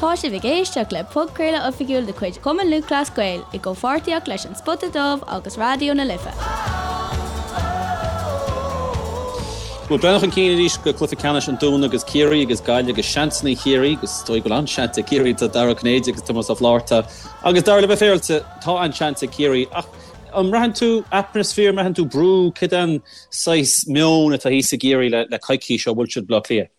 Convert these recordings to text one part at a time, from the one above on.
Tá sibh ag éisteacht le podchraoladh oifigiúil de chuid Chumann Lúthchleas Gael i gcomhpháirtíocht leis An Spota Dubh agus Raidió na Life. Bhuel, breathnú chun cinn arís go cluiche ceannais an Dúin agus Ciarraí agus Gaillimh agus seansanna Chiarraí agus is dóigh go bhfuil an-seans ag Ciarraí tá Dara Ó Cinnéide agus Tomás Ó Flátharta agus Dara le bheith féaráilte tá an-seans ag Ciarraí ach an mbraitheann tú atmaisféar, an mbraitheann tú brú, cad é an saghas meon atá thíos i gCiarraí le coicís ó bhuail siad Baile Átha Cliath?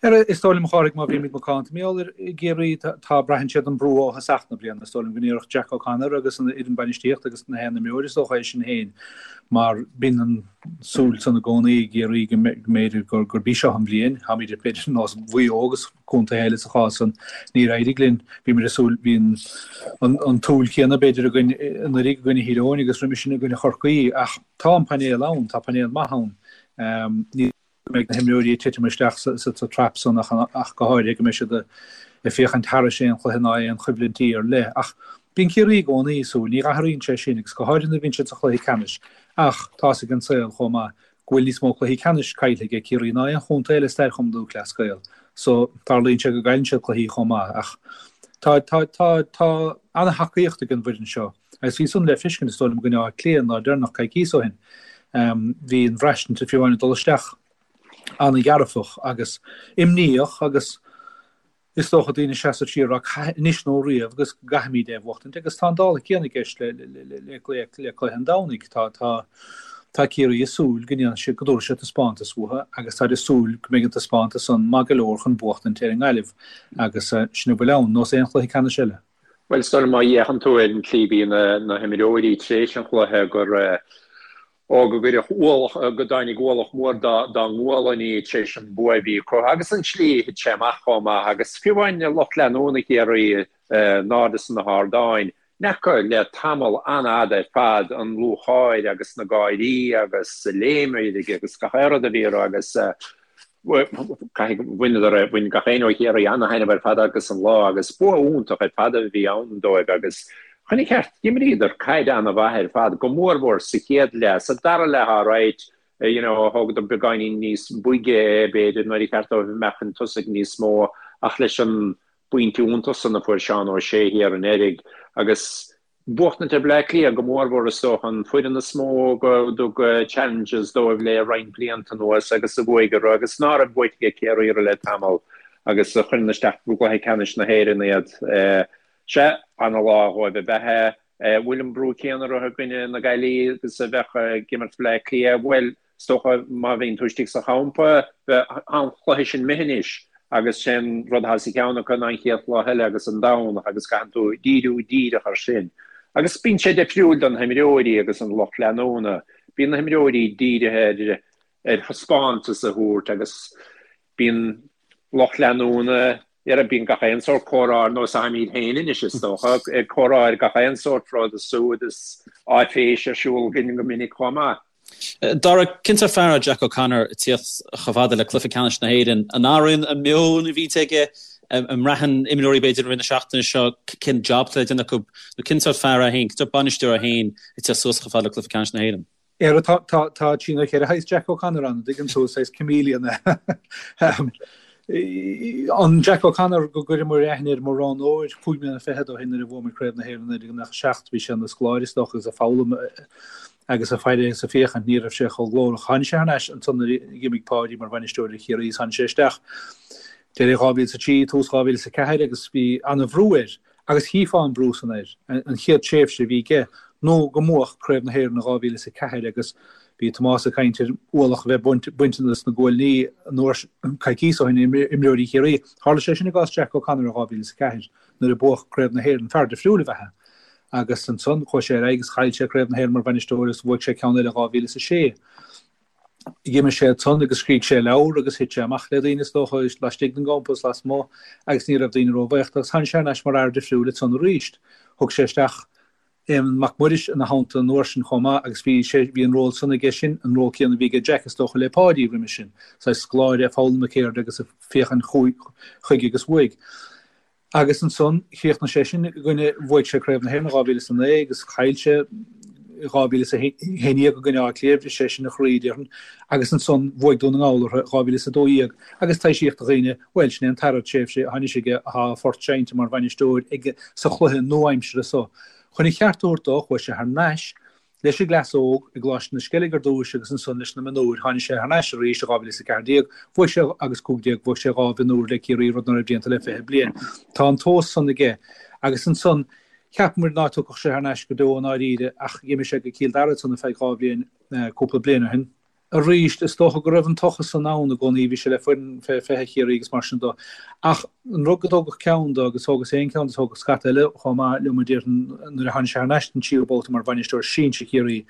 Is dóigh liom, a Chárthaigh, má bhímid macánta, mar gheall ar Chiarraí, tá, braitheann siad an brú ó thosach na bliana. Is dóigh liom go ndéarfadh Jack O'Connor agus an fhoireann bainistíochta agus na haon imreoir is dócha é sin féin, mar bíonn an súil san i gcónaí i gCiarraí go mb'fhéidir gurb í seo an bhliain. Táimid b'fhéidir ar nós Mhaigh Eo agus contaetha eile sa chás san. Níor éirigh linn. Bhíomar ag súil, bhí an tsúil chéanna b'fhéidir againn anuraidh i gcoinne Thír Eoghain agus roimhe sin i gcoinne Chorcaí ach tá an painéal ann, tá painéal maith ann. Ní. go mbeidh na himreoirí ag titim isteach sa trap san ach go háirithe go mbeidh siad ag féachaint thairis aon chluiche ná aon choimhlintí ar leith. Ach bíonn Ciarraí i gcónaí ag súil, ní athraíonn sé sin agus go háirithe nuair a bhíonn siad sa chluiche ceannais. Ach tá's ag an saol chomh maith go bhfuil níos mó cluichí ceannais caillte ag Ciarraí ná aon chontae eile i stair Chumann Lúthchleas Gael so tarlaíonn sé go gcailleann siad cluichí chomh maith. Ach tá tá tá tá ana-thacaíocht ag an bhfoireann seo. Agus bhí san le feiscint, is dóigh liom, i gcoinne Átha Cliath an lá deireanach coicíos ó shin. Bhí an bhraistint, fiú amháin ag dul isteach, an-dhearfach agus imníoch agus is dócha daoine ag seasamh siar ag rá anois nó riamh agus go gcaithfimid é a bhuachtaint agus tá an dála céanna i gceist le le cluiche an Domhnaigh. Tá tá tá Ciarraí ag súil go ndéanfaidh siad go dtabharfaidh siad taispeántas uathu agus táid ag súil go mbeidh an taispeántas san maith go leor chun buachtaint ar an nGaillimh agus sin a bhfuil ann, nós aon chluiche ceannais eile. Bhuel, is dóigh liom má fhéachann tú ar an tslí a bhí na himreoirí tar éis an chluiche gur, ó, go gcuireadh ualach, go dtáinig ualach mór dá ngualainní tar éis an bua a bhí acu agus an tslí a thit sé amach chomh maith agus fiú amháin lucht leanúna Chiarraí in airde sna hardáin, n'fheaca le tamall an-fhada ar fad an lúcháir agus na gáirí agus léim agus gach aon rud a bhí orthu agus Caithfidh, bhaineadar, bhain gach éinne ó Chiarraí ana-thaitneamh ar fad as an lá agus bua iontach ar fad a bhí ann dóibh agus chun an chirt, d'imríodar caid ana-mhaith ar fad, go mórmhór sa chéad leath. Sa dara leath alright, you know, thógadar beagáinín níos boige é b'fhéidir nuair a cheart dóibh a mbeadh chun tosaigh níos mó ach leis an bpointe iontach san a fuair Seán Ó Sé thiar anuraidh agus Buachtaint ar Bleá Cliath go mórmhór is dócha, an foireann is mó go dtug challenges dóibh le roinnt blianta anuas agus a bhuaigh orthu agus ná raibh buaite ag Ciarraí orthu le tamall agus a chuireann isteach i gcluiche ceannais na hÉireann iad. Sea, ana-lá dhóibh ab ea é. Bhfuil an brú céanna orthu i gcoinne na Gaillimhe agus a bheadh ag imirt Bleá Cliath? Bhuel, Is dócha má bhíonn tú istigh sa champa, tá an cluiche sin imithe anois agus sé an rud atá sa cheann acu ná an chéad chluiche eile agus an Domhnach agus caitheann tú díriú díreach ar sin. Agus bíonn sé difriúil do na himreoirí agus an lucht leanúna. Bíonn na himreoirí dírithe ar ar thaispeántas a thabhairt agus bíonn lucht leanúna ar bíonn gach aon sórt comhrá ar nós atáimid féin anois is dócha, ag comhrá ar gach aon sórt rud is súd is áiféis ar siúl againn go minic chomh maith. Dara, cén sórt fear é Jack O'Connor ag tíocht chomh fada le cluiche ceannais na hÉireann? An athraíonn an meon a bhíonns aige? An mbraitheann imreoirí b'fhéidir i rith na seachtaine seo cén job atá le déanamh acu? Nó cén sórt fear é féin, cén sórt bainisteoir é féin ag tíocht suas chomh fada le cluiche ceannais na hÉireann? Ara, tá, tá, tá trí nó cheithre shaghas Jack O'Connor ann, an dtuigeann tú, saghas chameleon é. An Jack O'Connor go gcuireamar aithne air mar roghnóir chúig mbliana fichead ó shin nuair a bhuamar Craobh na hÉireann 1997, bhí sé ina scoláire is dócha agus ag foghlaim agus ag faire agus ag féachaint, ní raibh sé chomh glórach. Tháinig sé thar n-ais ansan nuair a d'imigh Páidí mar bhainisteoir ar Chiarraí is tháinig sé isteach deireadh 2003, tús 2004 agus bhí ana-bhrú air agus chífeá an brú san air an chéad tréimhse a bhí aige nó go mbuafadh Craobh na hÉireann in 2004 agus bhí Tomás ag caint ar ualach a bheith bainte de na guailní an uair coicíos ó shin imreoirí Chiarraí. Tharla sé sin i gcás Jack O'Connor in 2004 nuair a buadh Craobh na hÉireann, fear difriúil ab ea é. Agus ansan chuaigh sé ar aghaidh agus chaill sé Craobh na hÉireann mar bhainisteoir agus bhuaigh sé ceann eile in 2006. D'imigh sé ansan agus scrígh sé leabhar agus thit sé amach le daoine is dócha, laistigh den gcampa is lasmuigh agus ní raibh daoine róbhuíoch de agus tháinig sé thar n-ais mar fhear difriúil ansan arís. Thug sé isteach Éamonn Mac Muiris ina theannta an uair sin chomh maith agus bhí sé, bhí an ról san aige sin, an ról céanna a bhí aige Jack is dócha le Páidí roimhe sin, saghas scoláire ag foghlaim na ceirde agus ag féachaint chuige agus uaidh. Agus ansan, chríochnaigh sé sin i gcoinne, bhuaigh sé Craobh na hÉireann in 2009 agus chaill sé. 2011 i gcoinne Átha Cliath, bhris sé sin a chroí, déarfainn, agus ansan bhuaigh Dún na nGall orthu i 2012 agus taibhsíodh do dhaoine, bhuel, sin é an tara tréimhse atá anois aige, atá a phort seinnte mar bhainisteoir aige sa chluiche nua-aimseartha so. Chun a cheart a thabhairt dó, chuaigh sé thar n-ais leis an gcleas óg i gColáiste na Sceilg ar dtúis agus ansan leis na mionúir. Tháinig sé thar n-ais arís i 2014, bhuaigh sé agus 15, bhuaigh sé 2 mhionúr le Ciarraí, rud ná raibh déanta le 20 bliain. Tá an tomhas san aige. Agus ansan, cheap muid ná tiocfadh sé thar n-ais go deo i ndáiríre ach dh'imigh sé go Cill Dara ansan ar feadh 2 bhliain, cúpla bliain ó shin. Arís, is dócha go raibh an tochas san ann i gcónaí, bhí sé le foireann fé 20 Chiarraí agus mar sin do. Ach an rud go dtógfadh ceann do, agus thógas féin ceann de, thógadh scata eile chomh maith liom a déarfainn nuair a tháinig sé thar n-ais don tríú babhta mar bhainisteoir sinsir Chiarraí,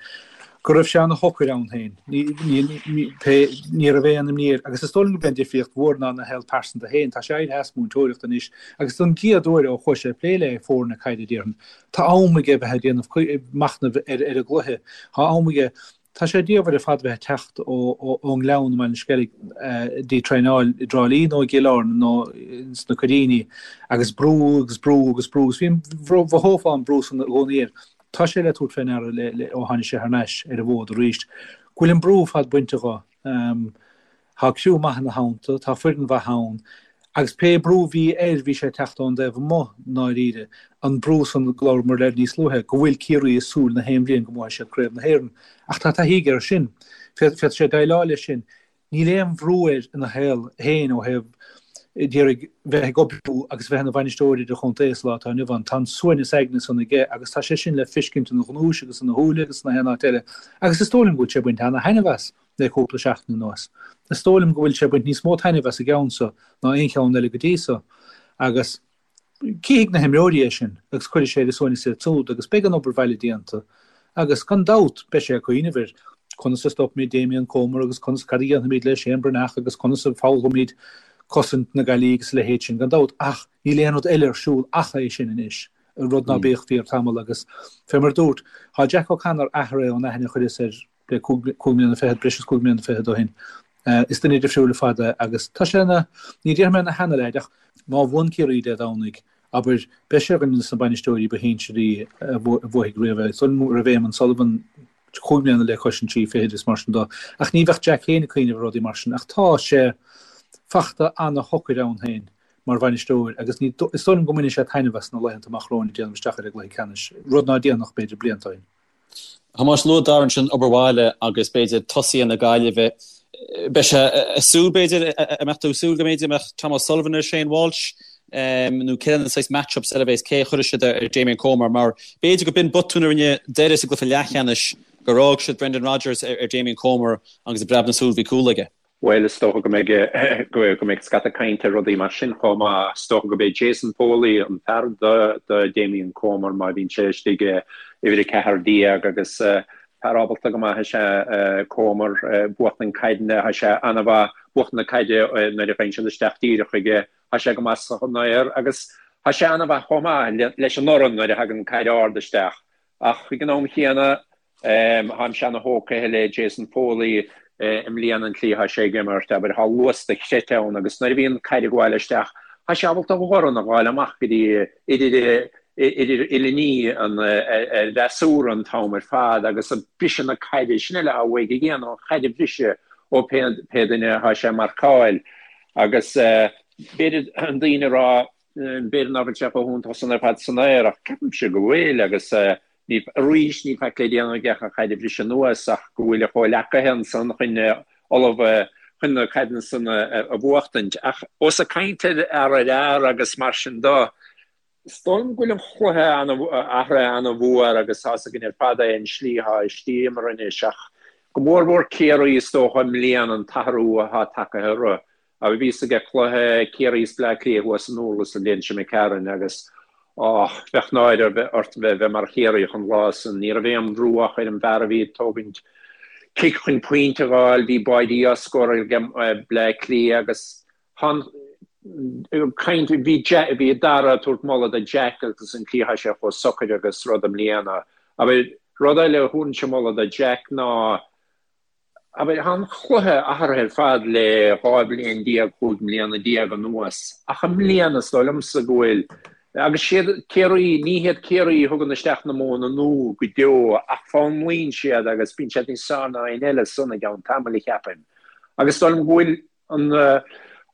go raibh sé ana-shocair ann féin. Ní, ní, ní, pé, ní raibh aon imní air. Agus is dóigh liom gurb é an difríocht mhór ná ina shaol pearsanta féin. Tá sé éirithe as múinteoireacht anois agus don gcéad uair ó chuaigh sé ag plé le foirne caide déarfainn, tá am aige bheith ag déanamh machnaimh ar ar an gcluiche. Tá am aige Tá sé diamhair ar fad bheith ag teacht ón nGleann i mBaile an Sceilg dtí traenáil i dTrá Lí nó i gCill Airne nó sna Coiríní agus brú agus brú agus brú agus bhí, mhothófá an brú san i gcónaí air. Tá sé le tabhairt fé ndeara ó tháinig sé thar n-ais ar an bhfód arís go bhfuil an brú ar fad bainte dho. Tá criú maith ina theannta, tá foireann mhaith ann, agus pé brú a bhí air, bhí sé ag teacht ón dtaobh amuigh, i ndáiríre. An brú san go labhramar air níos luaithe, go bhfuil Ciarraí ag súil na haon bhliain go mbuafaidh siad Craobh na hÉireann. Ach tá taithí aige air sin. Féadfaidh sé déileáil leis sin. Níl aon bhrú air ina shaol féin ó thaobh d'iarraidh bheith ag oibriú agus bheith ina bhainisteoir idirchontae sa lá atá inniu ann. Tá an suaimhneas aigne san aige agus tá sé sin le feiscint ina ghnúis agus ina shúile agus sna haon áit eile. Agus is dóigh liom go bhfuil sé ag baint ana-thaitneamh as. le cúpla seachtain anuas. Is dóigh liom go bhfuil sé ag baint níos mó taitnimh as an gceann so ná aon cheann eile go dtí so. Agus cífidh na himreoirí é sin agus cuirfidh sé ar a suaimhneas iad súd agus beidh an obair bhaile déanta agus gan dabht beidh sé ag cuimhneamh ar conas a stopfaimid Damien Comer agus conas, cad a dhéanfaimid le Shane Breathnach agus conas a foghlaimeoimid cosaint na Gaillimhe agus a leithéid sin gan dabht ach níl aon rud eile ar siúl ach é sin anois, rud ná bíodh fíor tamall agus fé mar a dúrt, tá Jack O'Connor athraithe ón aithne a chuireas air le 5 mbliana fichead, breis is 5 mbliana fichead ó shin. Is duine difriúil ar fad é agus tá sé ina, ní déarfaidh mé ina sheana-leaid ach má bhuann Ciarraí Dé Domhnaigh, abair, beidh sé ar dhuine de na bainisteoirí ba shinsearaí a bhuafaidh riamh é. Is dóigh liom go raibh Éamonn Sullivan 5 mbliana le cois an trí fichid is mar sin dó. Ach ní bheadh Jack féin ag cuimhneamh ar rudaí mar sin ach tá sé fachta ana-shocair ann féin mar bhainisteoir agus ní, is dóigh liom go mbainfidh sé taitneamh as na laethanta amach romhainn ag déanamh isteach ar an gcluiche ceannais, rud ná déanfadh b'fhéidir blianta ó shin. Thomáis, luaigh Dara ansin obair bhaile agus b'fhéidir tosaithe na Gaillimhe. Beidh sé ag súil b'fhéidir, an mbeadh tú ag súil go mb'fhéidir mbeadh Tom O'Sullivan ar Shane Walsh nó cé na saghas match-ups eile a bheas, cé a chuirfidh siad ar Damien Comer mar b'fhéidir go b'in botún a rinne Doire sa gcluiche leathcheannais gur fhág siad Brendan Rodgers ar Damien Comer agus i bpreab na súl bhí cúl aige. Bhuel, is dócha go mbeidh, go mbeidh scata cainte ar rudaí mar sin chomh maith. Is dócha go b'é Jason Foley an fear do, do Damien Comer má bhíonn sé istigh i uimhir 14 agus fear ábalta go maith is ea Comer, buachtaint caideanna, tá sé an-mhaith buachtaint na caide nuair a ghabhann siad isteach díreach chuige, tá sé go maith san aer agus tá sé an-mhaith chomh maith leis an urrann nuair a thagann caid ard isteach. Ach ag an am chéanna, Táimse ana-thógtha le Jason Foley i mbliana an tslí atá sé ag imirt, abair, tá luas dochreidte ann agus nuair a bhíonn caid ag gabháil isteach, tá sé ábalta a dhorn a ghabháil amach go dtí idir idir uillinní an fhreasúra an t-am ar fad agus ag briseadh na caide, sin uile atá uaidh a dhéanamh, an chaid a bhriseadh ó pé duine atá sé ag marcáil agus b'fhéidir an daoine a rá b'fhéidir nach bhfuil sé chomh hiontach san ar fad san aer ach ceapaimse go bhfuil agus Ní, arís, níl faic le déanamh aige ach an chaid a bhriseadh anuas ach go bhfuil a chomhleacaithe ansan chun ullamh chun na caideanna san a bhuachtaint. Ach ós ag caint ar fhear ar fhear agus mar sin do, is dóigh liom go bhfuil an chluiche athraithe ana-mhór agus tá's againn ar fad é an slí atá istigh imeartha anois ach go mór-mhór Ciarraí is dócha i mbliana an t-athrú atá tagtha orthu. Abair bhíos ag cluiche Ciarraí is Bleá Cliath thuas i nDurlas an bhliain seo imigh tharainn agus och, bheadh náire ort bheith mar Chiarraíoch an lá san. Ní raibh aon bhrú ach ar an bhfear a bhí ag tógaint cic chun pointe a dh'fháil, bhí báidí á scóráil ag Bleá Cliath agus tá an caint, bhí bhí Dara ag tabhairt moladh do Jack agus an tslí atá sé chomh socair agus rud i mbliana. Abair, rud eile a thabharfainnse moladh do Jack ná Abair, tá an chluiche athraithe ar fad le 12 bhliain, 15 mbliana anuas, ach i mbliana is dóigh liomsa go bhfuil. Agus siad Ciarraí, ní hiad Ciarraí a thugann isteach na modhanna nua go deo ach foghlaimíonn siad agus bíonn siad níos fearr ná éinne eile ansan i gceann tamaill, cheapfainn. Agus is dóigh liom go bhfuil an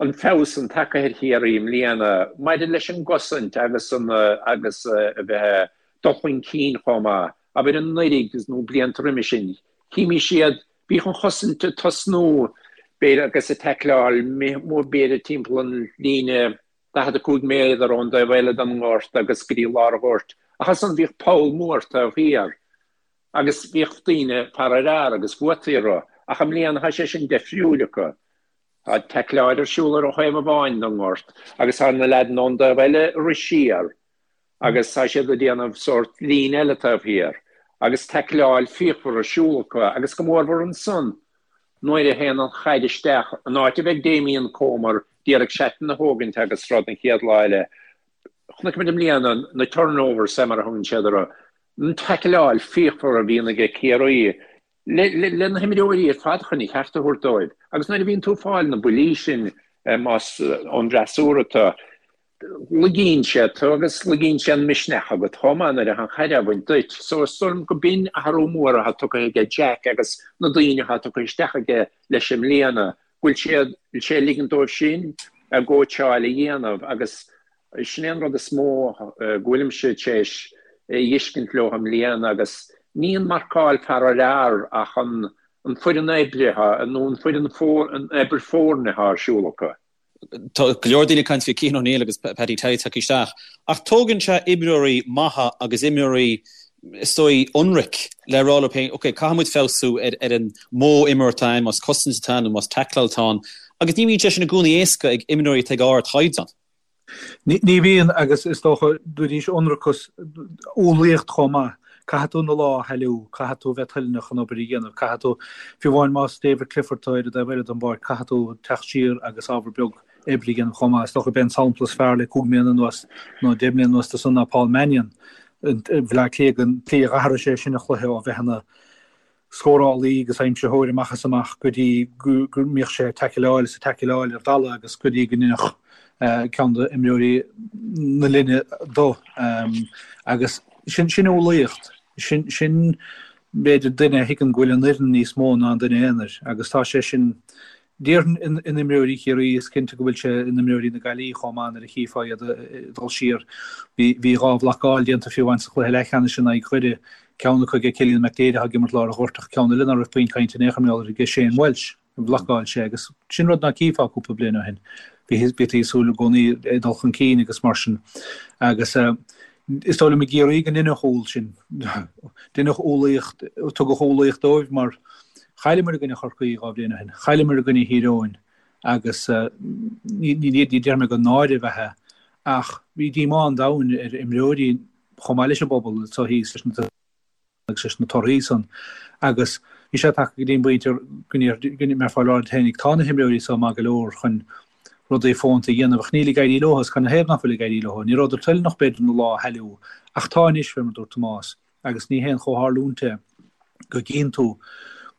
an feabhas san tagtha ar Chiarraí i mbliana maidir leis an gcosaint agus an agus a bheith ag dul chun cinn chomh maith. Abair anuraidh nó blianta roimhe sin, chímís iad, bhíodh an chosaint ag tosnú b'fhéidir agus ag taicleáil b'fhéidir timpeall an líne 45 méadar ón dtaobh eile den ngort agus go dtí lár an ghoirt, ach ansan bhíodh poll mór taobh thiar agus bhíodh daoine fear ar fhear agus bhuaití orthu, ach i mbliana tá sé sin deifriúil acu. Tá taicleáil ar siúl ar an thaobh amháin den ngort agus tá na leaideanna ón dtaobh eile ag rith siar agus tá siad ag déanamh sórt líne eile taobh thiar agus taicleáil fíochmhar ar siúl acu agus go mórmhór ansan nuair a théann an chaid isteach, an áit a bheidh Damien Comer d'iarraidh seaitan a thógaint agus rud an chéad lá eile. Chonaic muid i mbliana na turnovers, mar a thugann siad orthu, an taicleáil fíochmhar a bhíonn aige Ciarraí le na himreoirí ar fad chun a cheart a thabhairt dóibh. Agus nuair a bhíonn tú ag fáil na buillí sin más ón bhfreasúra tú, Lagaíonn sé tú agus lagaíonn sé an misneach agat chomh maith nuair atá an chaid á bhaint duit. So is dóigh liom go b'in athrú mór atá tugtha aige Jack agus na daoine atá tugtha isteach aige leis i mbliana, go bhfuil siad, bhfuil sé ag ligint dóibh sin a gcóitseáil a dhéanamh agus sin é an rud is mó go bhfuilimse tar éis a fheiscint leo i mbliana agus ní an marcáil fear ar fhear ach an an foireann oibre nó an foireann an obair foirne atá ar siúl acu. Tá go leor daoine ag caint faoi Cian O'Neill agus Paddy Tally tagtha isteach, ach tógann sé imreoirí maithe agus imreoirí, is dóigh, ionraic le rá leo féin, ok, caithfidh muid feabhsú ar ar an modh imeartha atá ann, más cosaint atá ann nó más taicleáil atá ann, agus ní bhíonn sé sin i gcónaí éasca ag imreoirí atá ag ardchaighdeán. Ní bhíonn, agus is dócha, dúirt ionracas, umhlaíocht chomh maith. Caithfidh tú na lámha a shailleadh, caithfidh tú a bheith toilteanach an obair a dhéanamh, caithfidh tú, fiú amháin más David Clifford atá ar an dtaobh eile den bpáirc, caithfidh tú teacht siar agus ábhar beag oibre a dhéanamh chomh maith. Is dócha gurb é an sampla is fearr le cúig mbliana anuas nó deich mbliana anuas de san ná Paul Mannion i mBleá Cliath, an tslí a dh'athraigh sé sin a chluiche ó bheith ina scórálaí agus aimsitheoir amach is amach go dtí go mbíodh sé ag taicleáil is ag taicleáil ar dalladh agus go dtí go ndeineadh ceann d'imreoirí na linne dó. Agus sin sin umhlaíocht. Sin sin b'fhéidir duine a thuigeann go bhfuil an fhoireann níos mó ná an duine aonair agus tá sé sin Déarfainn in imreoirí Chiarraí, is cinnte go bhfuil sé in imreoirí na Gaillimhe chomh maith nuair a chífeá iad ag dul siar. Bhí 2 bhlocáil déanta fiú amháin sa chluiche leathcheannais in aghaidh Dhoire, ceann acu ag Cillian McDaid atá ag imirt lár an ghoirt ach ceann eile ná raibh puinn cainte in aon chor mar gheall air ag Shane Walsh. Bhlocáil sé agus sin rud ná cífeá cúpla bliain ó shin. Bhítí ag súil i gcónaí ag dul chun cinn agus mar sin. Agus is dóigh liom i gCiarraí go ndeineadh umhal sin. Deineadh umhlaíocht, tugadh umhlaíocht dóibh mar chailleamar i gcoinne Chorcaí 2 bhliain ó shin, chailleamar i gcoinne Thír Eoghain agus ní déarfaidh mé gur náire ab ea é ach bhí díomá an domhain ar imreoirí chomh maith leis an bpobal anseo thíos leis na agus leis na torthaí san agus bhí sé tagtha go dtí an bpointe go mbeifeá ag rá leat féinig tá na himreoirí seo maith go leor chun rudaí fónta a dhéanamh ach níl ag éirí leo agus canathaobh nach bhfuil ag éirí leo? Ní rabhadar toilteanach b'fhéidir na lámha a shailleadh ach tá anois, fé mar a dúirt Tomás, agus ní haon chomhtharlúint é go gcíonn tú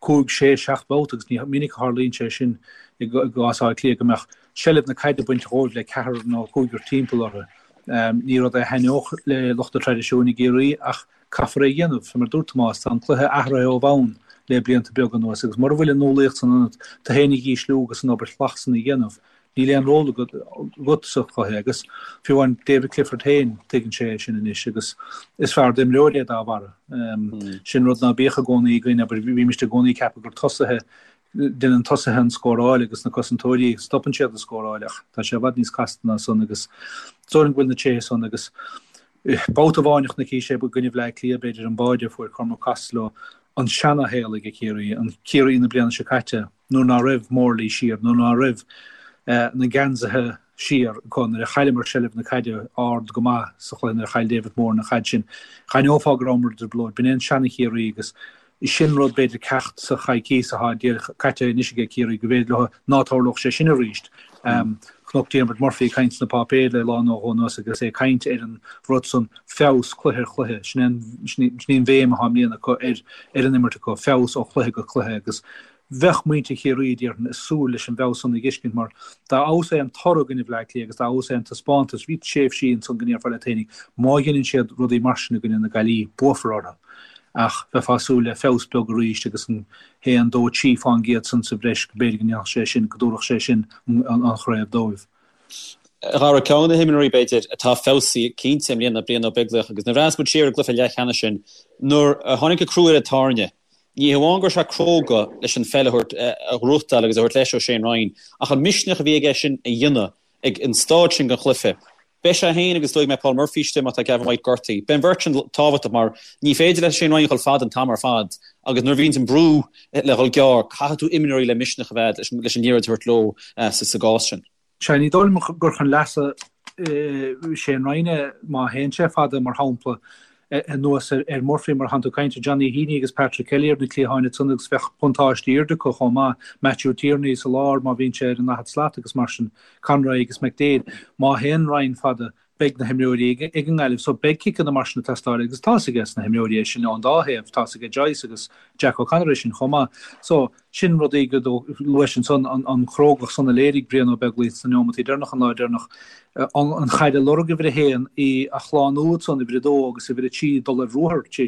cúig, sé, seacht mbabhta agus ní minic a tharlaíonn sé sin i gcás Átha Cliath go mbeadh seilbh na caide bainte dhóibh le ceathrar nó cúigear timpeall orthu. Ní rud é a thaitneodh le lucht an traidisiúin i gCiarraí ach Caithfear é a dhéanamh. Fé mar a dúirt Tomás, tá an cluiche athraithe ó bhonn le blianta beaga anuas agus mura bhfuil an umhlaíocht san ionat tú féin a dhísliú agus an obair shlach san a dhéanamh, níl aon ról agat sa chluiche agus fiú amháin David Clifford féin, tuigeann sé é sin anois agus is fearr d'imreoir é dá bharra. Sin rud ná bíodh i gcónaí againn, abair, bhímist i gcónaí ag ceapadh gur tosaithe, déanann tosaithe an scóráil agus na cosantóirí, stopann siad an scóráil ach tá sé i bhfad níos casta ná san agus is dóigh liom go bhfuil na tréithe san agus Babhta amháin a chonaic sé i gcoinne Bhleá Cliath, b'fhéidir, an báide a fuair Cormac Costello, an seana-shaol ag Ciarraí, an Ciarraí na bliana seo caite, nuair ná raibh Morley siar, nuair ná raibh na geansaithe siar acu, nuair a chailleamar seilbh na caide ard go maith sa chluiche, nuair a chaill David Moran an chaid sin, d'aithneofá go rabhamar i dtrioblóid. B'in é an seana-Chiarraí agus Sin rud, b'fhéidir, ceacht sa choicíos atá díreach caite anois aige Ciarraí, go bhféidir leo ná tarlódh sé sin arís. Chonac Diarmuid Murphy ag caint sna páipéir le lá nó dhó anuas agus é ag caint ar an rud san, feabhas cluiche ar chluiche. Sin é an, sin í an bhéim atá i mbliana acu ar, ar an imirt acu, feabhas ó chluiche go cluiche agus. Bheadh muintir Chiarraí, déarfainn, ag súil leis an bhfeabhas san a dh'fheiscint mar dá fheabhas é an toradh i gcoinne Bhleá Cliath agus dá fheabhas é an taispeántas, bhí tréimhsí ansan go ndéarfá leat fhéinig, má dheineann siad rudaí mar sin i gcoinne na Gaillimhe, buafar orthu. Ach bheifeá ag súil le feabhas beag arís agus an haon, dó, trí fán gcéad san sa bhreis go b'fhéidir go ndéanfadh sé sin, go dtabharfadh sé sin an chraobh dóibh. A Dhara, ceann de na himreoirí, b'fhéidir, atá feabhsaithe cinnte i mbliana ná Brian Ó Beaglaoich agus nuair a bhreathnaíos muid siar ar an gcluiche leathcheannais sin, nuair a tháinig an crú ar an tairne, ní hamháin go raibh sé cróga leis an pheil a thabhairt, a ghnóthachtáil agus a thabhairt leis ó Shane Ryan, ach an misneach a bhí aige sin a dhéanamh ag an staid sin den chluiche. Beidh sé féin agus is dóigh go mbeidh Paul Murphy istigh má tá Gavin White gortaithe. Beidh an bheirt sin tábhachtach mar ní féidir le Shane Ryan a dhul fada an t-am ar fad agus nuair a bhíonns an brú le dhul gearr, caithfidh tú imreoirí le misneach a bheith leis an liathróid a thabhairt leo sa gcás sin. Sea, ní dóigh liom gur chun leasa Shane Ryan é má théann sé fada, mar shampla, anuas ar Murphy mar atánn tú ag caint ar Johnny Heaney agus Patrick Kelly ar na cliatháin ansan agus bheadh buntáiste airde acu chomh maith, Matthew Tierney sa lár má bhíonn sé ar an daichead slat agus mar sin, Conroy agus McDaid. Má théann Ryan fada, beidh na himreoirí ag an nGaillimh so beidh ciceanna mar sin ag teastáil agus tá's aige na himreoirí é sin ón dá thaobh, tá's aige Joyce agus Jack O'Connor é sin chomh maith. So, sin rudaí go luais ansan, an chrógacht san a léirigh Brian Ó Beaglaoich sna neomataí deireanacha an lá deireanach, an chaid a lorg uimhir a haon, í a shlánú ansan uimhir a dó agus uimhir a trí dul ar ruathar tar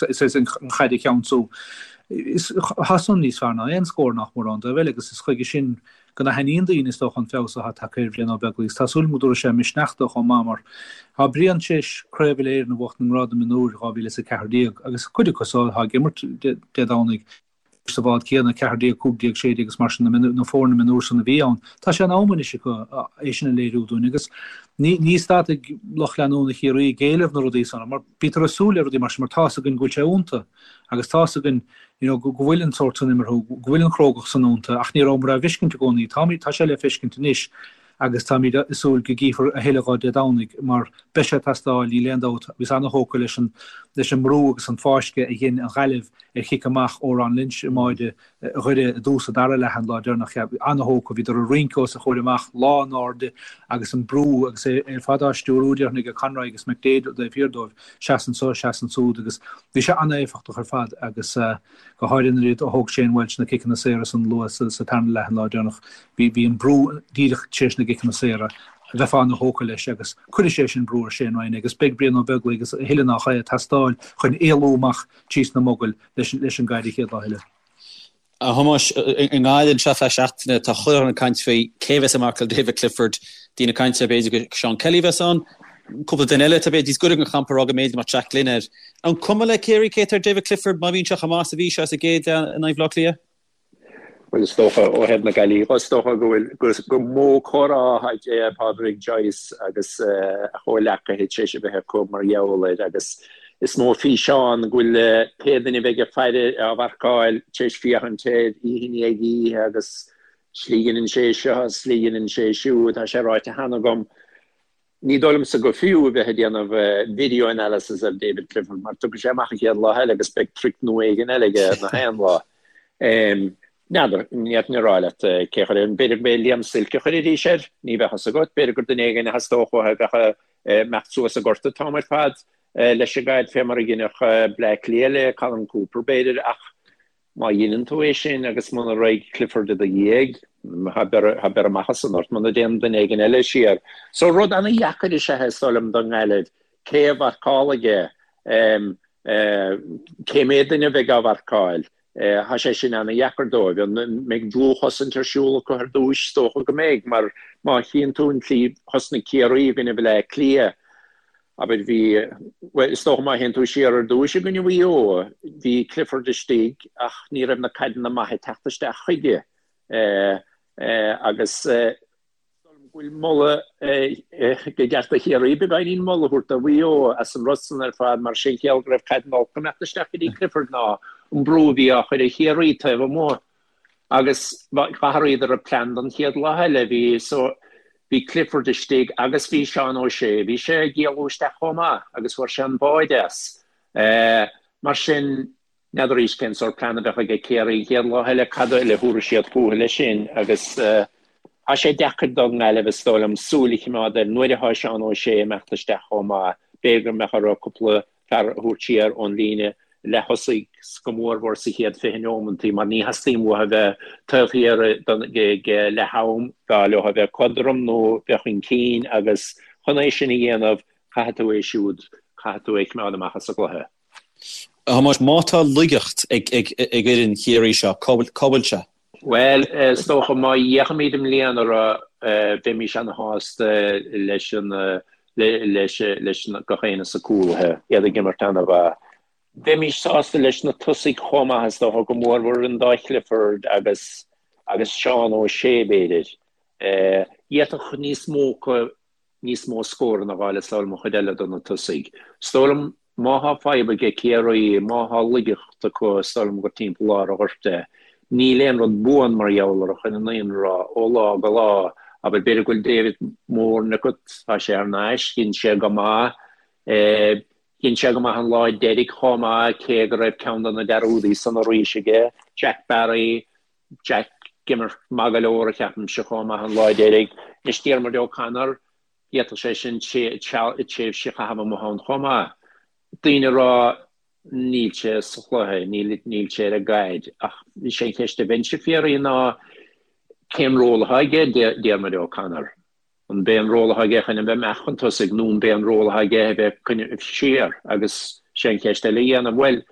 éis an chaid a cheansú. Tá san níos fearr ná aon scór nach mór ón dtaobh eile agus is chuige sin go n-aithníonn daoine, is dócha, an feabhas atá tagtha ar Bhrian Ó Beaglaoich. Tá súil agam go dtabharfaidh sé misneach dó chomh maith mar tá Brian tar éis Craobh Uile-Éireann a bhuachtain i ngrád na mionúir 2014 agus cuid acu so atá ag imirt Dé Domhnaigh sa bhád céanna, 14, 15, 16 agus mar sin, na foirne mionúir san a bhí ann. Tá sé in am anois acu é sin a léiriú dúinn agus ní stadfaidh lucht leanúna Chiarraí ag éileamh na rudaí san mar bítear ag súil le rudaí mar sin mar tá's againn go bhfuil sé iontu agus tá's againn you know, go bhfuil an sórt san imeartha, go bhfuil an chrógacht san iontu, ach ní rabhamar á bhfeiscint i gcónaí. Táimid, tá sé le feiscint anois agus táimid ag súil go gcífear a thuilleadh dhó Dé Domhnaigh mar beidh sé ag teastáil, níl aon dabht. Bhíos ana-thógtha leis an, leis an mbrú agus an fáisceadh a dhein an Ghaillimh ar chic amach ó Ron Lynch i mbáide Dhoire i dtús an dara leath an lá deireanach. Ana-thógtha, bhíodar ag rince os a chomhair amach, lán airde agus an brú agus é ar fad á stiúrú déarfainn ag Conroy agus McDaid taobh thiar dóibh. Seas anso, seas ansúd agus bhí sé an-éifeachtach ar fad agus go háirithe nuair a thóg Shane Walsh na ciceanna saora san luath sa tarna leath an lá deireanach. Bhí bhí an brú díreach tar éis na gciceanna saora, bheifeá ana-thógtha leis agus cuirfidh sé sin brú ar Shane Ryan agus beidh Brian Ó Beaglaoich agus a thuilleadh nach é ag teastáil chun éalú amach tríos na mogaill leis leis an gcaid an chéad lá eile. A Thomáis, i nGaillimh anseo feadh seachtaine, tá chuile dhuine ag caint faoi cé a bheas ag marcáil David Clifford. Daoine ag caint ar b'fhéidir gur Seán Kelly a bheas ann. Cúpla duine eile atá b'fhéidir níos gaire don champa ag rá go mb'fhéidir go mbeadh Jack Glynn air. An cuma le Ciarraí cé atá ar David Clifford má bhíonn sé chomh maith is a bhí sé sa gcéad leath in aghaidh Bhaile Átha Cliath? Bhuel, is dócha, ó thaobh na Gaillimhe dhe, is dócha go bhfuil, gur mó comhrá atá Pádraig Joyce agus a chomhleacaithe tar éis a bheith acu mar gheall air agus is mó físeán go bhfuil pé duine a bheidh ag faire á mharcáil tar éis féachaint air oíche i ndiaidh oíche agus slí a dheineann sé seo, slí a dheineann sé siúd, tá sé ráite cheana agam. Ní dóigh liomsa go fiú a bheith ag déanamh video analysis ar David Clifford mar tiocfaidh sé amach an chéad lá eile agus beidh trick nua éigin eile aige na haon lá. N'fheadar, ní fhéadfainn a rá leat cé a chuir air. B'fhéidir go mb'é Liam Silke a chuirfidís air, ní bheadh fhios agat. B'fhéidir gur duine éigin a theastódh uathu a bheadh ag imeacht suas an gort an t-am ar fad leis an gcaid fé mar a dheineadh Bleá Cliath le Colm Cooper b'fhéidir ach Má dheineann tú é sin agus muna raghaidh Clifford i do dhiaidh, tá beir amach as san ort, muna dtéann duine éigin eile siar. So rud ana-dheacair is ea é, is dóigh liom, don nGaillimh. Cé a mharcálfaidh é? Cé mhéad duine a bheidh á mharcáil? Tá sé sin ana-dheacair dóibh. An mbeidh dlúthchosaint ar siúl acu ar dtúis? Is dócha go mbeidh, mar má chíonn tú an tslí thosnaigh Ciarraí i gcoinne Bhaile Átha Cliath, Abair, bhí, bhuel, is dócha má théann tú siar ar dtúis i gcoinne Mhaigh Eo, bhí Clifford istigh ach ní raibh na caideanna maithe ag teacht isteach chuige agus is dóigh liom go bhfuil moladh go gceart do Chiarraí beagáinín moladh a thabhairt do Mhaigh Eo as an rud san ar fad mar sé an chiall go raibh caideanna olca ag imeacht isteach go dtí Clifford ná an brú a bhí á chur ar Chiarraí taobh amuigh. Agus d'athraíodar a plean don chéad lá eile. Bhí so, bhí Clifford istigh agus bhí Seán O'Shea, bhí sé ag éalú isteach chomh maith agus fuair sé an báide as. Mar sin, n'fheadar arís cén sórt plean a bheadh aige Ciarraí an chéad lá eile, cad eile a thabharfaidh siad fúthu leis sin agus tá sé deacair don nGaillimh, is dóigh liom, súil a chimeád air nuair atá Seán O'Shea ag imeacht isteach chomh maith. B'fhéidir go mbeadh orthu cúpla fear a thabhairt siar ón líne. Leath-thosaigh go mórmhór sa chéad 20 neomantaí mar ní theastaíonn uathu a bheith taobh thiar ag leath-am, b'fhearr leo a bheith cothrom nó bheith chun cinn agus chun é sin a dhéanamh caithfidh tú é siúd, caithfidh tú é a choimeád amach as an gcluiche. A Thomáis, má tá laigeacht ag fhoireann Chiarraí seo, cá bhfuil sé? Bhuel, is dócha má fhéachaimid i mbliana orthu, bheimís ana-shásta leis an, leis, leis gach éinne sna cúlaithe, iad ag imirt ana-mhaith. Bheimís sásta leis na tosaigh chomh maith, is dócha, go mórmhór an dá Chliford agus, agus Seán O'Shea, b'fhéidir. D'fhéadfadh níos mó acu níos mó scóranna a fháil is dóigh liom an chuid eile de na tosaigh. Is dóigh liom má thá fadhb aige Ciarraí, má thá laigeacht acu is dóigh liom gur timpeall lár an ghoirt é. Níl aon rud buan mar gheall orthu chun an fhírinne a rá, ó lá go lá. Abair b'fhéidir go bhfuil David Moran agat, tá sé thar n-ais, dhein sé go maith. Dhein sé go maith an lá deiridh chomh maith cé go raibh ceann de na dearúdaí san arís aige, Jack Barry, Jack ag imirt maith go leor a cheapaimse chomh maith an lá deiridh. Anois Diarmuid O'Connor, d'fhéadfadh sé sin tréimhse a chaitheamh amuigh ann chomh maith. Daoine ag rá níl sé sa chluiche, níl níl sé ar an gcaid ach is é an cheist a bheinnse ag fiafraí ná cén ról atá aige Diarmuid O'Connor? An b'é an ról atá aige chun a bheith amach chun tosaigh nó an b'é an ról atá aige a bheith coinneáil siar agus sé an cheist eile a dhéanamh, bhuel,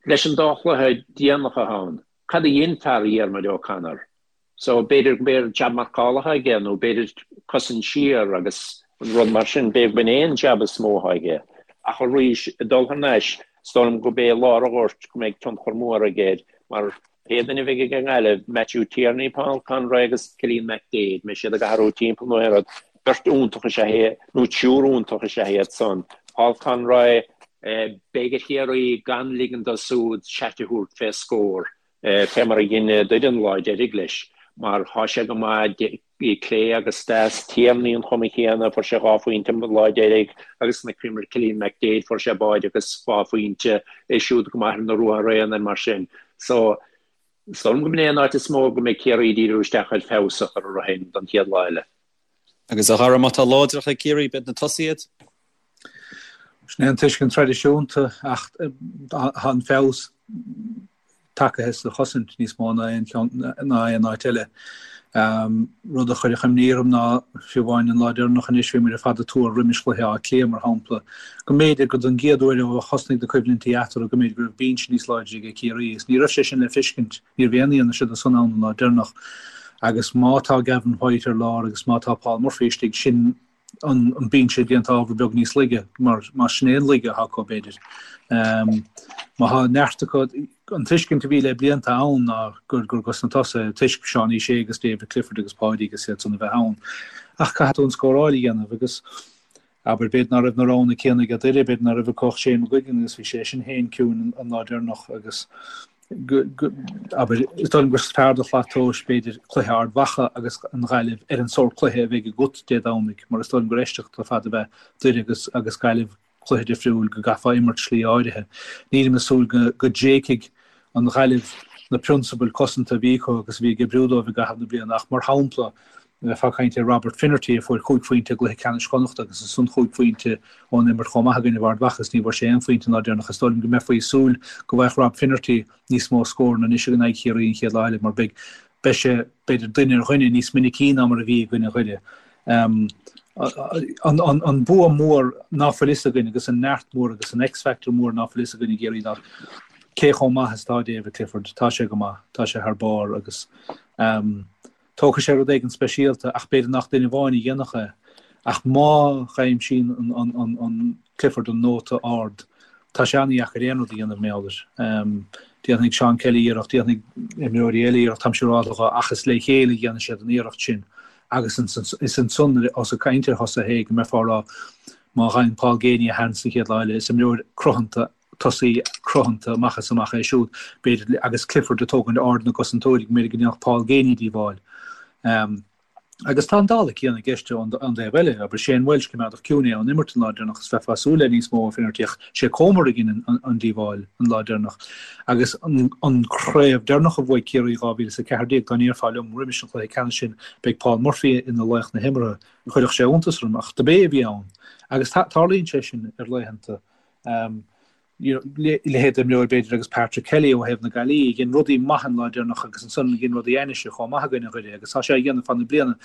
leis an dá chluiche déanach atá ann, Cad a dhein fear Dhiarmuid O'Connor? So, b'fhéidir go b'é jab marcála atá aige nó b'fhéidir cosaint siar agus rud mar sin, b'fhéidir go b'in é an jab is mó atá aige. Ach arís, ag dul thar n-ais, is dóigh liom go b'é lár an ghoirt go mbeidh tionchar mór aige air mar pé duine a bheidh ag an nGaillimh, Matthew Tierney, Paul Conroy agus Cillian McDaid, mbeidh siad ag athrú timpeall nó aon rud, beirt iontach is ea é, nó triúr iontach is ea iad san. Paul Conroy, Beidh ar Chiarraí gan ligean dó súd seat a thabhairt fé scór, fé mar a dhein Doire an lá deiridh leis, mar thá sé go maith clé agus deas. Tierney an chuma chéanna, fuair sé dhá phointe an lá deiridh agus chonaiceamar Cillian McDaid, fuair sé báide agus dhá phointe, é siúd go maith ar na ruathair aonair mar sin. So, is dóigh liom go mb'in é an áit is mó go mbeidh Ciarraí ag díriú isteach ar feabhas a chur orthu féin don chéad lá eile. Agus a Dhara, má tá láidreacht ag Ciarraí, b'iad na tosaithe iad? Sin é an tuiscint traidisiúnta ach tá an feabhas tagaithe sa chosaint níos mó ná aon cheann ná aon áit eile. Rud a chuirfeadh imní orm ná, fiú amháin an lá deireanach anois, bhí muid ar fad ag tuar roimis chluiche Átha Cliath, mar shampla, go mb'fhéidir go don gcéad uair ó thosnaigh na coimhlintí eatarthu go mb'fhéidir go raibh binse níos láidre ag Ciarraí agus ní raibh sé sin le feiscint, ní raibh aon fhianaise de san ann an lá deireanach. Agus má tá Gavin White ar lár agus má tá Paul Murphy istigh, sin an binse déanta ábhar beag níos laige, mar más sin é an laige atá acu, b'fhéidir. Má tá neart acu, an tuiscint a bhí le blianta ann ná gur gur dos na tosaithe, toisc Seánie Shea agus David Clifford agus Páidí agus iad san a bheith ann. Ach caithfidh tú an scóráil a dhéanamh agus, abair, b'fhéidir ná raibh na roghanna céanna ag Doire, b'fhéidir ná raibh acu ach Shane McGuigan agus bhí sé sin féin ciúin an lá deireanach agus, abair, is dóigh liom gur fearr do shlat tomhais, b'fhéidir, cluiche Ard Mhacha agus an Ghaillimh ar an sórt cluiche a bheidh agat Dé Domhnaigh, mar is dóigh liom gur aisteach ar fad a bheith Doire agus agus Gaillimh cluiche difriúil go gcaithfeá imirt slí áirithe. Nílim ag súil go go dtréigfidh an Ghaillimh na prionsabail cosanta a bhí acu agus a bhí ag oibriú dóibh i gcaitheamh na bliana ach mar shampla, Bheifeá ag caint ar Robert Finnerty a fuair chúig phointe i gcluiche ceannais Chonnachta agus ansan chúig phointe ón imirt chomh maith i gcoinnibh Ard Mhacha is ní bhfuair sé aon phointe an lá deireanach. Is dóigh liom go mbeifí ag súil go bhfaigheadh Rob Finnerty níos mó scóranna anois in aghaidh Chiarraí an chéad lá eile mar beidh beidh sé b'fhéidir duine ar dhuine níos minicí ná mar a bhí i gcoinne Dhoire. An an bua mór ná fuil fhios againn agus an neart mór agus an X-factor mór ná fuil fhios againn i gCiarraí ná cé chomh maith is atá David Clifford. Tá sé go maith, tá sé thar barr agus Tógfaidh sé rud éigin speisialta ach b'fhéidir nach duine amháin a dhéanfadh é. Ach má dh'aimsíonn an Clifford an nóta ard, tá sé an-dheacair aon rud a dhéanamh mar gheall air. Déanfaidh Seán Kelly iarracht, déanfaidh imreoirí eile iarracht, táim siúrálta dhe, ach is le chéile a dhéanfaidh siad an iarracht sin. Agus is ansan, ós ag caint ar thosaithe é, go mbeifeá ag rá má fhaigheann Paul Geaney a sheans an chéad lá eile, is imreoir cruthanta tosaí cruthanta amach is amach é siúd, b'fhéidir, agus Clifford ag tógaint aird na gcosantóirí, go mb'fhéidir go ndéanfadh Paul Geaney díobháil. Agus tá an dála céanna i gceist ón dtaobh eile, abair Shane Walsh, coimeádach ciúin é ón imirt an lá deireanach is bheifeá ag súil le níos mó ó Finnerty ach sé Comer a dhein an díobháil an lá deireanach. Agus an craobh deireanach a bhuaigh Ciarraí 2014, dá ndéarfá liom roimis an chluiche ceannais sin beidh Paul Murphy ina laoch na himeartha, chuirfeadh sé iontas orm ach dob é a bhí ann. Agus tarlaíonn sé sin ar laethanta. Leithéid d'imreoir b'fhéidir agus Patrick Kelly ó thaobh na Gaillimhe, dhein rudaí maithe an lá deireanach agus ansan dhein rudaí ainnise chomh maith i gcoinne Dhoire agus tá sé á dhéanamh fad na bliana.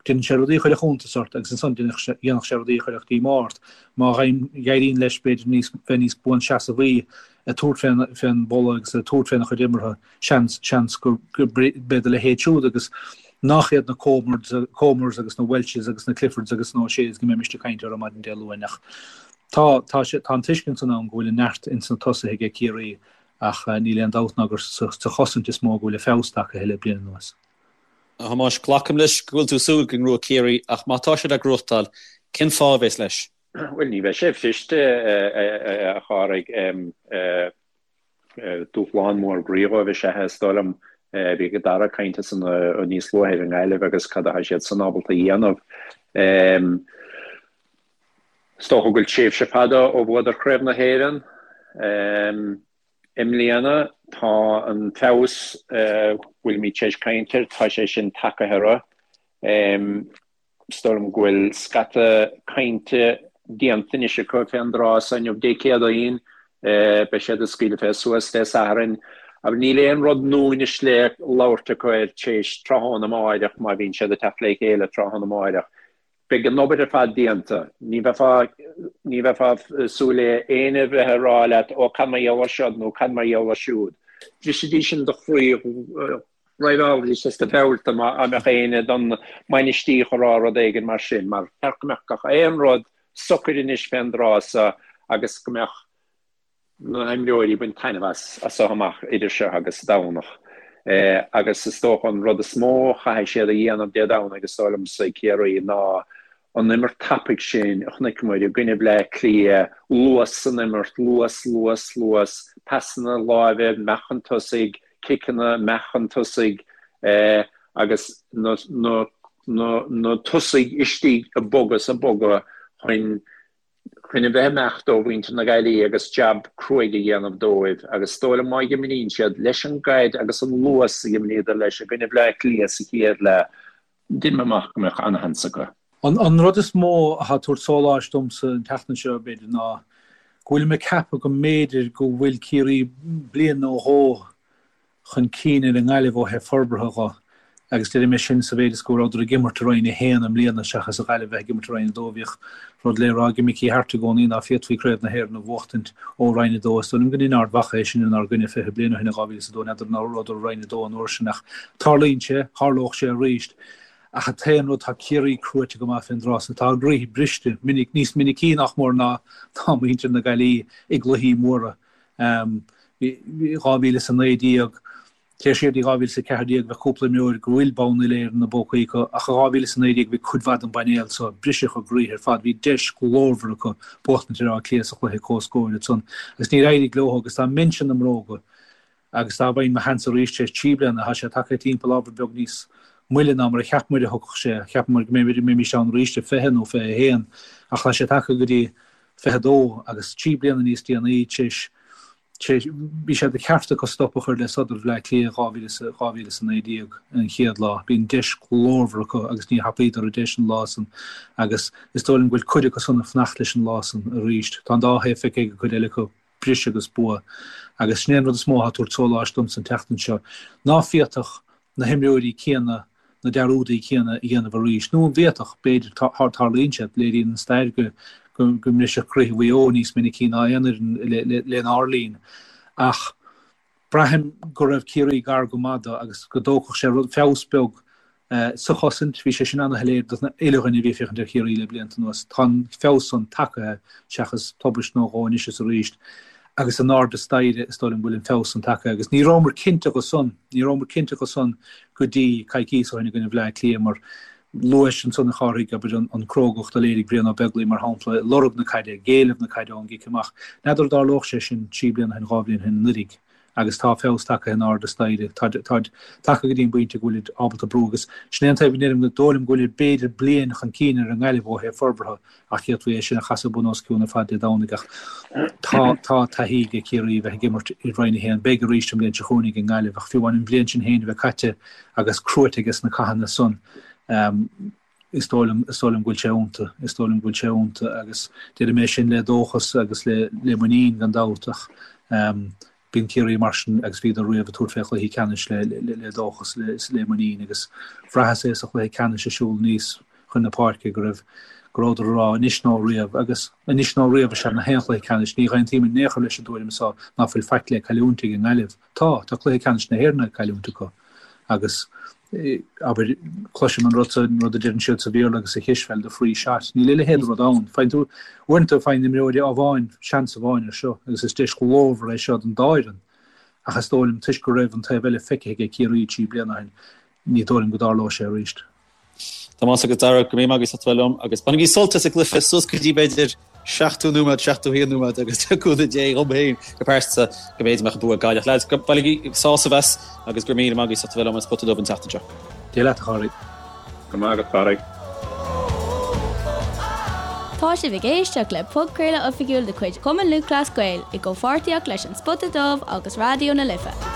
Déanann sé rudaí a chuirfeadh iontas ort agus ansan dhéanfadh sé rudaí a chuirfeadh díomá ort. Má éiríonn leis b'fhéidir níos bheith níos buanseasamhaí ag tabhairt fén bpolla agus ag tabhairt féna chuid imeartha, seans, seans go mbeidh a leithéid siúd agus nach iad na Comers agus na Welches agus na Cliffords agus na O'Sheas go mbeimis ag caint orthu maidin Dé Luain ach Tá, tá sé, tá an tuiscint san ann go bhfuil an neart ins na tosaithe aige Ciarraí ach níl aon dabht ná gur sa chosaint is mó go bhfuil a feabhas tagtha le bliain anuas. A Thomáis, glacaim leis go bhfuil tú ag súil go ngnóthóidh Ciarraí ach má tá siad á gnóthachtáil, cén fáth a bheas leis? Bhuel, ní bheidh sé fuirist, a Chárthaigh. Dúshlán mór groí dhóibh is ea é, is dóigh liom. Bhí Dara ag caint ansan níos luaithe ar an nGaillimh agus cad atá siad san ábalta a dhéanamh. Is dócha go bhfuil tréimhse fada ó bhuadar Craobh na hÉireann. I mbliana tá an feabhas a bhfuilimid tar éis caint air, tá sé sin tagaithe orthu. Is dóigh liom go bhfuil scata cainte déanta anois acu fén dtráth so inniu, Dé Céadaoin. Beidh siad ag scaoileadh fé suas Dé Sathairn. Agus níl aon rud nua anois le labhairt acu air tar éis tráthnóna amáireach, má bhíonn siad ag teacht le chéile tráthnóna amáireach. Beidh an obair ar fad déanta. Ní bheifeá, ní bheifeá ag súil le éinne bheith ag rá leat, ó cad mar gheall air seo nó cad mar gheall air siúd. Bhrisfidís sin do chroí, dhraibheálaidís as do bheulta má mbeadh éinne don mbainistíocht ag rá rud éigin mar sin, mar cheart go mbeadh gach aon rud socair anois fén dtráth so agus go mbeadh na himreoirí ag baint taitneamh as as so amach idir seo agus Domhnach. Agus is dócha an rud is mó a chaithfidh siad a dhéanamh Dé Domhnaigh, is dóigh liomsa, Ciarraí, ná an imirt tapaidh sin a chonaiceamar i gcoinne Bhleá Cliath, luas san imirt, luas, luas, luas, pasanna láimhe amach chun tosaigh, ciceanna amach chun tosaigh agus na na na na tosaigh istigh ag bogadh is ag bogadh chun chun a bheith ag imeacht ó mhuintir na Gaillimhe agus jab cruaidh a dhéanamh dóibh agus is dóigh liom má dh'imríonn siad leis an gcaid agus an luas a dh'imríodar leis i gcoinne Bhleá Cliath sa chéad leath, deinim amach go mbeadh ana-sheans acu. An rud is mó atá ag tabhairt sóláis domsa an tseachtain seo, b'fhéidir, ná go bhfuilim ag ceapadh go mb'fhéidir go bhfuil Ciarraí bliain nó dhó chun cinn ar an nGaillimh ó thaobh forbartha dho agus deirim é sin sa mhéid is go rabhadar ag imirt i Roinn 1 i mbliana seachas an Ghaillimh bheith ag imirt i Roinn 2. Bhíodh rud le rá ag Mickey Harte i gcónaí ná féadfaí Craobh na hÉireann a bhuachtaint ó Roinn 2. Is dóigh liom go ndein Ard Mhacha é sin inár gcoinne 20 bliain ó shin i 2002. N'fheadar an rabhadar i Roinn 2 an uair sin ach tarlaíonn sé, tharlódh sé arís. Ach an t-aon rud, tá Ciarraí cruaite go maith fén dtráth so. Tá a gcroíthe briste minic, níos minicí nach mór ná muintir na Gaillimhe i gcluichí móra. 2019, téir siar dtí 2014, bheadh cúpla imreoir go bhfuil bonn uile-Éireann ina bpócaí acu, ach i 2019 bhí cuid mhaith den bpainéal so, briseadh a gcroíthe ar fad, bhí deis ghlórmhar acu buachtaint ar Áth Cliath sa chluiche comhscóir ansan agus níor éirigh leo agus dá mbeinnse ina mbróga agus dá bhfaighinn mo sheans arís tar éis trí bliana, tá sé tagtha timpeall ábhar beag níos moille ná mar a cheap muid a thiocfadh sé, cheap muid go mbeimis ann arís i 20 nó 21 ach tá sé tagtha go dtí 22 agus 3 bliana níos déanaí tar éis bhí sé de cheart acu stop a chur le sodar Bhleá Cliath 2019 an chéad lá. Bhí an deis ghlórmhar acu agus níor thapaíodar an deis an lá san agus is dóigh liom go bhfuil cuid acu san ag fanacht leis an lá san arís. Tá an dá thaobh feicthe ag an gcuid eile acu, briseadh agus bua. Agus sin é an rud is mó atá ag tabhairt sóláis domsa an tseachtain seo. Ná féadfadh na himreoirí céanna na dearúdaí céanna a dhéanamh arís. Nó an bhféadfadh? B'fhéidir. Tarlaíonn sé. Léiríonn an stair go mbriseadh croíthe Mhaigh Eo níos minicí ná aon fhoireann lenár linn. Ach braithim go raibh Ciarraí gar go maith dó agus go dtógfadh sé rud, feabhas beag sa chosaint. Bhí sé sin ana-shoiléir don uile dhuine a bhí ag féachaint ar Chiarraí le blianta anuas. Tá an feabhas san tagaithe seachas tubaist nó dhó anois is arís. Agus in airde staighre is dóigh liom go bhfuil an feabhas san tagaithe. Agus ní rabhamar cinnte dho san, ní rabhamar cinnte dho san go dtí coicíos ó shin i gcoinne Bhleá Cliath mar luais ansan a Chárthaigh, abair, an crógacht a léirigh Brian Ó Beaglaoich mar shampla, ag lorg na caide, ag éileamh na caide ón gcic amach. N'fheadar an dtarlódh sé sin trí bliana ó shin, dhá bhliain ó shin anuraidh. Agus tá feabhas tagtha in airde staighre. Táid tagtha go dtí an bpointe go bhfuilid ábalta brú agus sin é an taobh a ndeirim go dóigh liom go bhfuilid b'fhéidir bliain chun cinn ar an nGaillimh ó thaobh forbartha ach d'fhéadfaí é sin a chasadh bun os cionn ar fad Dé Domhnaigh ach tá tá taithí ag Ciarraí a bheith ag imirt i Roinn 1. Beidh arís an bhliain seo chugainn ag an nGaillimh ach fiú amháin an bhliain sin féin a bheith caite agus cruaite aige sna cathanna san. Is dóigh liom, is dóigh liom go bhfuil sé iontu, is dóigh liom go bhfuil sé iontu agus déarfaidh mé sin le dóchas agus le le muinín gan dabht ach bíonn Ciarraí mar sin agus bhíodar riamh ag tabhairt fé chluichí ceannais le le le dóchas le le muinín agus bhraitheas é sa chluiche ceannais ag siúl aníos chun na páirce go raibh go rabhadar ag rá anois nó riamh agus anois nó riamh is ea in aon chluiche ceannais. Ní aontaím in aon chor leis an dtuairim so ná fuil faic le cailliúint ag an nGaillimh. Tá, tá cluiche ceannais na hÉireann le cailliúint acu agus, abair, cloisim an rud sa, an rud a deireann siad sa Bhéarla agus sa chispheil, the free shot. Níl a leithéid de rud ann. Faigheann tú, uaireanta faigheann imreoirí amháin seans amháin ar seo agus is deis ghlórmhar é seo don dá fhoireann ach is dóigh liom toisc go raibh an taobh eile feicthe aige Ciarraí 3 bliana ó shin, ní dóigh liom go dtarlóidh sé arís. Tomás agus Dara, go raibh míle maith agaibh as ucht a bheith liom agus bainigí sult as an gcluiche suas go dtí b'fhéidir 70 nóiméad, 71 nóiméad agus le cúnamh Dé dhom féin go pearsanta go mb'fhéidir mbeadh an bua ag Gaillimh. Lads, bainigí sásamh as agus go raibh míle maith agaibh as ucht a bheith liom ar an Spota Dubh an tseachtain seo. Dia leat a Chárthaigh. Go raibh maith agat, a Chárthaigh. Tá sibh ag éisteacht le podchraoladh oifigiúil de chuid Chumann Lúthchleas Gael i gcomhpháirtíocht leis An Spota Dubh agus Raidió na Life.